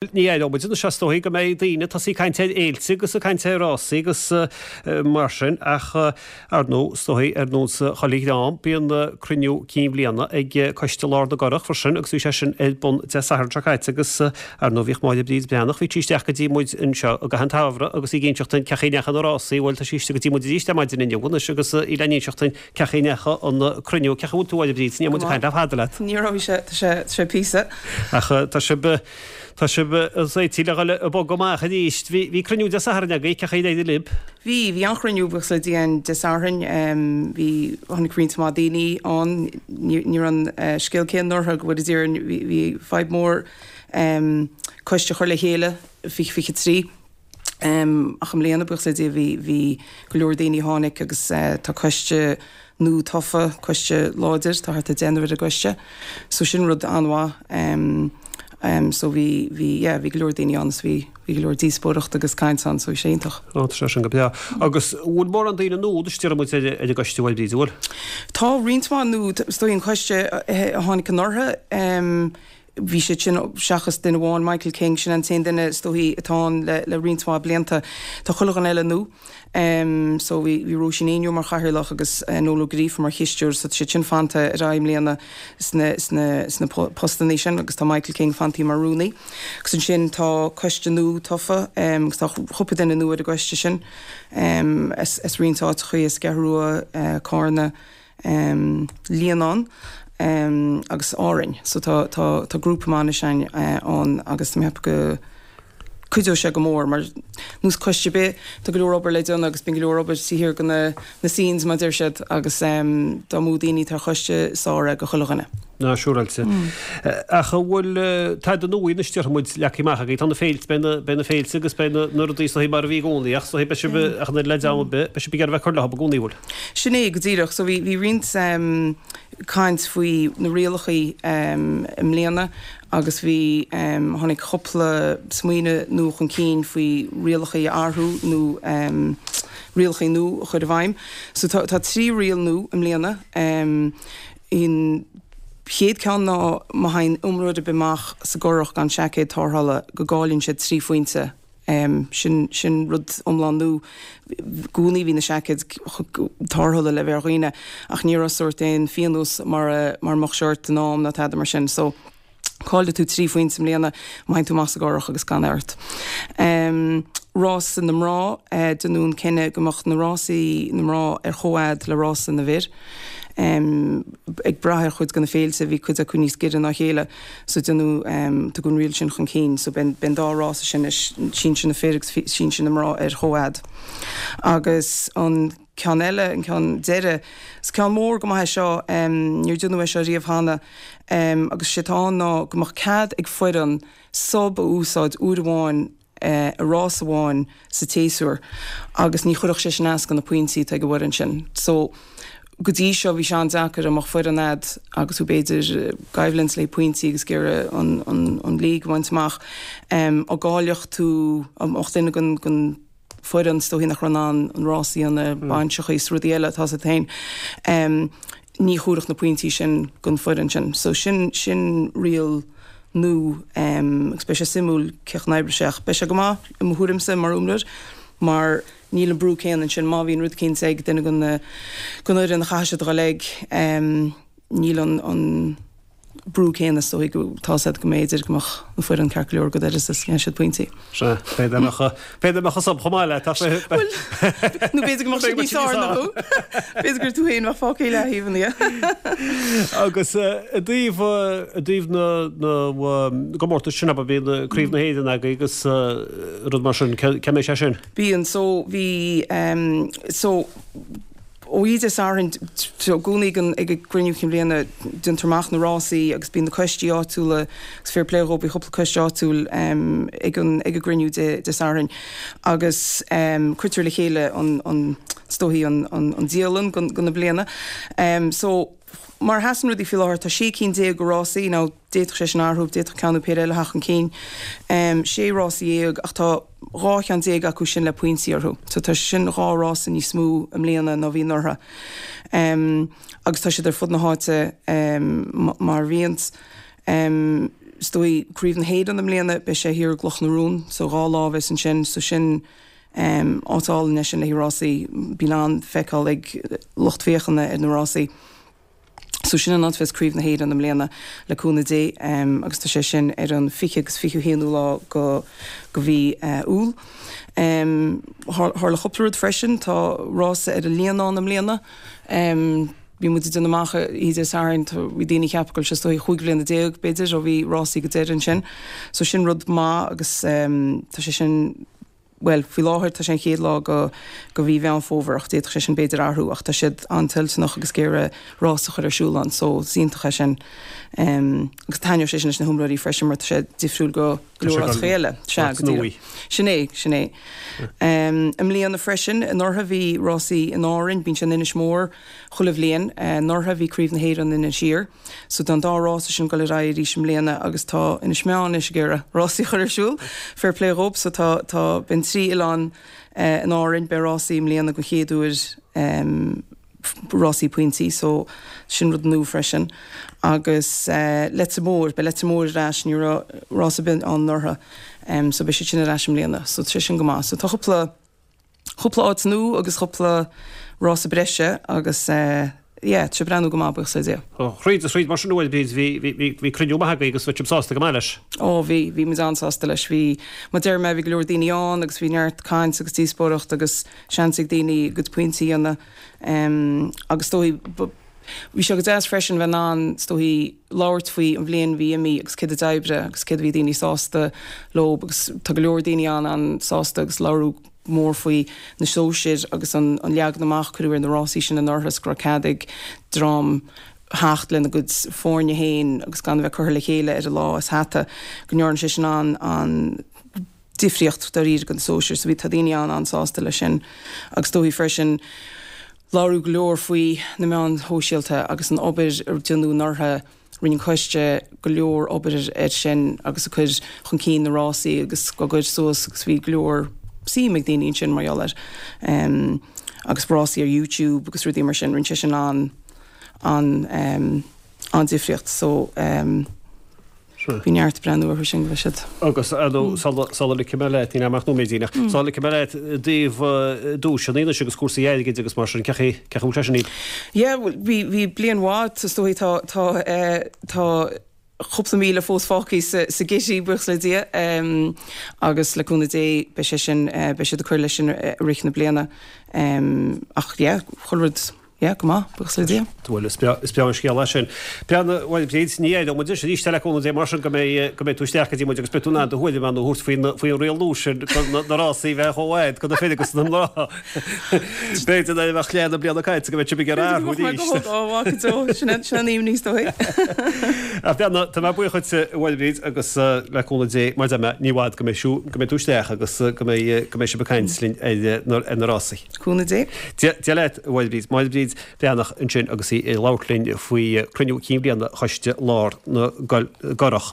Ní aireoidh muid anois is dóigh go mbeidh daoine ag tosaí ag caint ar fhéilte agus ag caint ar rásaí agus mar sin ach ar ndóigh is dóigh ar nós chuile dhream bíonn cruinniú cinn bhliana ag Coiste Lár na gCurrach freisin agus bhí sé sin ar bun Dé Sathairn seo caite agus ar ndóigh bhíodh Máire Bríd Breathnach bhí sí isteach go dtí muid anseo i gcaitheamh an tsamhraidh agus í ag inseacht dúinn cén chaoi a ndeachaigh na rásaí bhuel tá sí istigh go dtí muid arís ar maidin inniu anois agus í le n-inseacht dúinn Cén chaoi a ndeachaigh an cruinniú, cén chaoi a bhfuil tú a Mháire Bríd, ní raibh muid ag caint le fada leat. Ní raibh, sé, tá sé, tá sé píosa. Ach tá sibh, tá sibh réitithe le dhul ag bogadh amach arís. Bhí, bhí cruinniú Dé Sathairn agaibh, cén chaoi ar éirigh libh? Bhí, bhí an-chruinniú buíochas le Dia ann Dé Sathairn. Bhí, tháinig roinnt mhaith daoine ann. Ní, ní raibh an scéal céanna anuraidh go bhfóire Dia orainn, bhí, bhí fadhb mhór coiste a chur le chéile, 2023. Ach i mbliana, buíochas le Dia, bhí, bhí go leor daoine a tháinig agus tá coiste nua tofa, coiste láidir, tá thart ar deichniúr ar an gcoiste. So sin rud an-mhaith. So bhí, bhí, yeah, bhí go leor daoine ann is bhí, bhí go leor díospóireacht agus caint ann, so bhí sé iontach. Ó, tá sé sin go breá. Agus bhfuil mórán daoine nua anois déarfaidh muid ar an gcoiste, a Mháire Bríd, an bhfuil? Tá roinnt mhaith nua, is dóigh an coiste a tháinig anuraidh, Bhí siad sin, seachas duine amháin, Michael King, sin an t-aon duine is dóichí atá ann le le roinnt mhaith blianta. Tá chuile dhuine eile nua. So bhí bhí Róisín Éinniú mar chathaoirleach agus Noel Ó Gríofa mar chisteoir so tá siad sin fanta ar aghaidh i mbliana sna sna sna postannaí sin agus tá Michael King fantaí mar rúnaí. Agus ansin tá coiste nua tofa agus tá cúpla duine nua ar an gcoiste sin as as roinnt áiteachaí, as an gCeathrú Rua, Cárna, Líonán agus Árainn. So tá tá tá grúpa maith anois ann agus tá mé ag ceapadh go cuideoidh sé go mór mar nós coiste ar bith tá go leor obair le déanamh agus bíonn go leor obair taobh thiar de na na scenes mar a deir siad agus dá mó daoine atá ar choiste is fearr é go chuile dhuine. Ná siúráilte. Ach an bhfuil tada nua anois déarfaidh muid leagtha amach agaibh? Tá na féilte, beidh na, beidh na féilte agus beidh na, na rudaí is dóigh mar a bhí i gcónaí ach is dóigh beidh sibh ach an oiread le dream ar bith, beidh sibh ag iarraidh bheith ag cur leo i gcónaí, an bhfuil? Sin é go díreach. So bhí, bhí roinnt caint faoi na rialachaí i mbliana agus bhí, tháinig cúpla smaoineamh nua chun cinn faoi rialachaí a athrú nó rialachaí nua a chur i bhfeidhm. So tá, tá 3 riail nua i mbliana. An chéad ceann ná má thagann imreoir ar bith amach sa gcurach gan seaicéad tarrthála go gcailleann siad 3 phointe. Sin, sin rud iomlán nua. I gcónaí bhí na seaicéid tarrthála le bheith ar dhaoine ach ní raibh sórt aon phionós mar a, mar a mbeadh sé ort in am ná tada mar sin. So. Caillfidh tú 3 phointe i mbliana má thagann tú amach sa gcurach agus gan é ort. Rása na mná, Deineadh an cinneadh go mbeadh na rásaí na mná ar chomhfhad le rása na bhfir. Ag brath ar chuid de na féilte, bhí cuid acu níos giorra ná a chéile so deineadh, tugadh an riail sin chun cinn. So beidh an dá rása sin anois, sinsir na fir agus sinsir na mná ar chomhfhad. Agus an. ceann eile, an ceann deiridh. Is ceann mór go maith é seo, níor deineadh é seo riamh cheana, agus sé atá ann ná go mbeadh cead ag foireann sub a úsáid uair amháin i rás amháin sa tséasúr agus ní chuirfeadh sé sin as do na pointí atá ag an bhfoireann sin. So, go dtí seo bhí sé an-deacair dá mbeadh foireann a'd agus tú b'fhéidir i gcoimhlint le pointí agus ag iarraidh an, an, an league a bhaint amach, dá gcaillfeadh tú, dá mbeadh duine den, den, foireann, is dóichí nach raibh in ann an rás a dhéanamh, bainseachaí is rudaí eile, tá's a't féin. Ní thabharfadh na pointí sin don foireann sin. So sin, sin riail nua agus beidh sé suimiúil cén chaoi a n-oibreoidh sé ach beidh sé go maith i mo thuairimse mar imreoir mar níl an brú céanna ansin. Má bhíonn rud eicínt ag duine den, den fhoireann a chaithfidh siad a dhul ag, níl an, an, brú céanna is dóigh go tá's a'd go mb'fhéidir go mbeadh an foireann ceart go leor go deireadh is dhéanfaidh siad pointí. Sea, b'fhéidir go mbeadh, b'fhéidir go mbeadh an sub chomh maith leat ach b'fhéidir. Bhuel, nó b'fhéidir go mbeadh siad níos fearr ná thú. B'fhéidir gur tú féin a bheadh fágtha i leataobh ina dhiaidh. Agus i dtaobh, i dtaobh na, na gcomórtas sin, abair, bíonn Craobh na hÉireann agaibh agus rud mar sin, cén mbeidh sé sin? Bíonn, so bhí, so, Oíche Dé Sathairn, i gcónaí ag an gcruinniú cinn bhliana, déantar amach na rásaí agus bíonn na coistí áitiúla, agus fair play dhóibh, bhí cúpla coiste áitiúil ag an ag an gcruinniú Dé Dé Sathairn agus cuirtear le chéile an an is dóichí an an an dialann don do na bliana. So mar a sheasann rudaí faoi láthair tá 16 cinn de rásaí, now d'fhéadfadh sé sin athrú, d'fhéadfadh ceann nó péire eile a theacht chun cinn, 16 rása ach tá 12 cheann acu sin le pointí orthu. So tá sin dhá rása níos mó i mbliana ná bhí anuraidh. Agus tá siad ar fud na háite mar a bhíonns. Is dóigh Craobh na hÉireann i mbliana, beidh sé thiar i gCloch na Rún, so 2 lá a bheas ansin, so sin áit álainn é sin le haghaidh rásaí, bíonn an-fheiceáil ag lucht féachana ar na rásaí. So sin an áit a bheas Craobh na hÉireann i mbliana, le cúnamh Dé, agus tá sé sin ar an 20 agus 21ú lá go go mhí Iúil. Tharla cúpla rud freisin, tá rása ar an Líonán i mbliana. Bhí muid ag déanamh amach oíche Dé Sathairn, bhí daoine ag ceapadh go bhfuil sé is dóigh chúig bhliana déag, b'fhéidir, ó bhí rásaí go deireadh ansin. So sin rud maith agus tá sé sin, bhuel, faoi láthair tá sé an chéad lá go go mhí Mheán Fómhair ach d'fhéadfadh sé sin b'fhéidir athrú ach tá siad an-toilteanach agus ag iarraidh rás a chur ar siúl ann so is iontach é sin. Agus taitneoidh sé sin leis na hiomróirí freisin mar tá sé difriúil go go leor áiteacha eile. Sea, go díreach. Sin é, sin é. I mbliana freisin, anuraidh bhí rásaí in Árainn, bíonn sé in Inis Mór chuile bhliain. Anuraidh bhí Craobh na hÉireann in Inis Oírr. So tá an dá rása sin ag dul ar aghaidh arís i mbliana agus tá Inis Meáin anois ag iarraidh rásaí a chur ar siúl. Fair play dhób. So tá, tá, beidh an trí oileán in Árainn, beidh rásaí i mbliana den chéad uair. Rásaí pointí so sin rud nua freisin. Agus Leitir Móir, beidh Leitir Móir ar ais, ní raibh rás ar bith ann anuraidh so beidh siad sin ar ais i mbliana so tá sé sin go maith. So tá cúpla, cúpla áit nua agus cúpla rása breise agus yeah, tá sé ag breathnú go maith buíochas le Dia. Thríd is thríd mar sin a Mháire Bríd, bhí, bhí, bhí, bhí cruinniú maith agaibh agus bhí sibh sásta go maith leis. Ó bhí, bhí muid an-sásta leis. Bhí, mar deir mé, bhí go leor daoine ann agus bhí neart caint agus díospóireacht agus seans ag daoine a gcuid pointí a dhéanamh agus is dóigh, bhí sé go deas freisin bheith in ann, is dóigh, labhairt faoi an bhliain a bhí imithe agus céard a d'oibrigh agus céard a bhí daoine sásta leo agus tá go leor daoine an-an-sásta agus labhradh go mór faoi na sóisir agus an leagan amach a cuireadh ar na rásaí sin anuraidh is go raibh cead ag dream theacht lena gcuid foirne féin agus gan a bheith curtha le chéile ar an lá as hata, go ndearna sé sin an-an difríocht dáiríre do na sóisir. So bhí, tá daoine an-an-sásta leis sin agus is dóigh freisin labhradh go leor faoi na meáin shóisialta agus an obair a déanadh anuraidh, rinne an coiste go leor obair air sin agus ag cur chun cinn na rásaí agus á gcur suas agus bhí go leor suim ag daoine ansin mar gheall air. Agus rásaí ar YouTube agus rudaí mar sin, rinne sé sin an, an, an-difríocht. So. Bhí neart ag breathnú orthu sin go raibh siad. Agus sula ligfidh mé leat, níl ach nóiméidín ach sula ligfidh mé leat i dtaobh duaiseanna anois agus cúrsaí airgid agus mar sin, cén chaoi a bhfuil sé sin? Yeah, bhí bhí bliain mhaith, is dóigh tá tá tá cúpla míle fós fágtha sa sa gcití, buíochas le Dia, agus le cúnamh Dé beidh sé sin beidh siad ag cur leis sin i rith na bliana. Ach yeah, chuile rud Yeah, go maith, buíochas le Dia. Bhuel, is breá an scéal é sin. Breathnaigh, bhuel, Bríd, ní éireoidh muid anois arís le cúnamh Dé mar sin go mbeidh, go mbeidh tú isteach go dtí muid agus beidh tú in ann do thuairim a thabhairt faoin, faoin riail nua sin go na, na rásaí bheith chomh fhad go na fir agus na mná. B'fhéidir nuair a bheadh leath na bliana caite go mbeidh sibh ag iarraidh athrú arís. Ó, mhaith go deo, sin an, sin an aoibhinn is dóigh. Ach Breathnaigh, tá mé buíoch dhuit, a Mháire Bríd, agus le cúnamh Dé, mar a deir mé, ní i bhfad go mbeidh, go mbeidh tú isteach agus go mbeidh, go mbeidh sibh ag caint linn ar na, ar na rásaí. Cúnamh Dé. Dia leat, a Mháire Bríd. Máire Bríd Breathnach ansin agus í ag labhairt linn faoi cruinniú cinn bhliana Choiste Lár na gCurrach.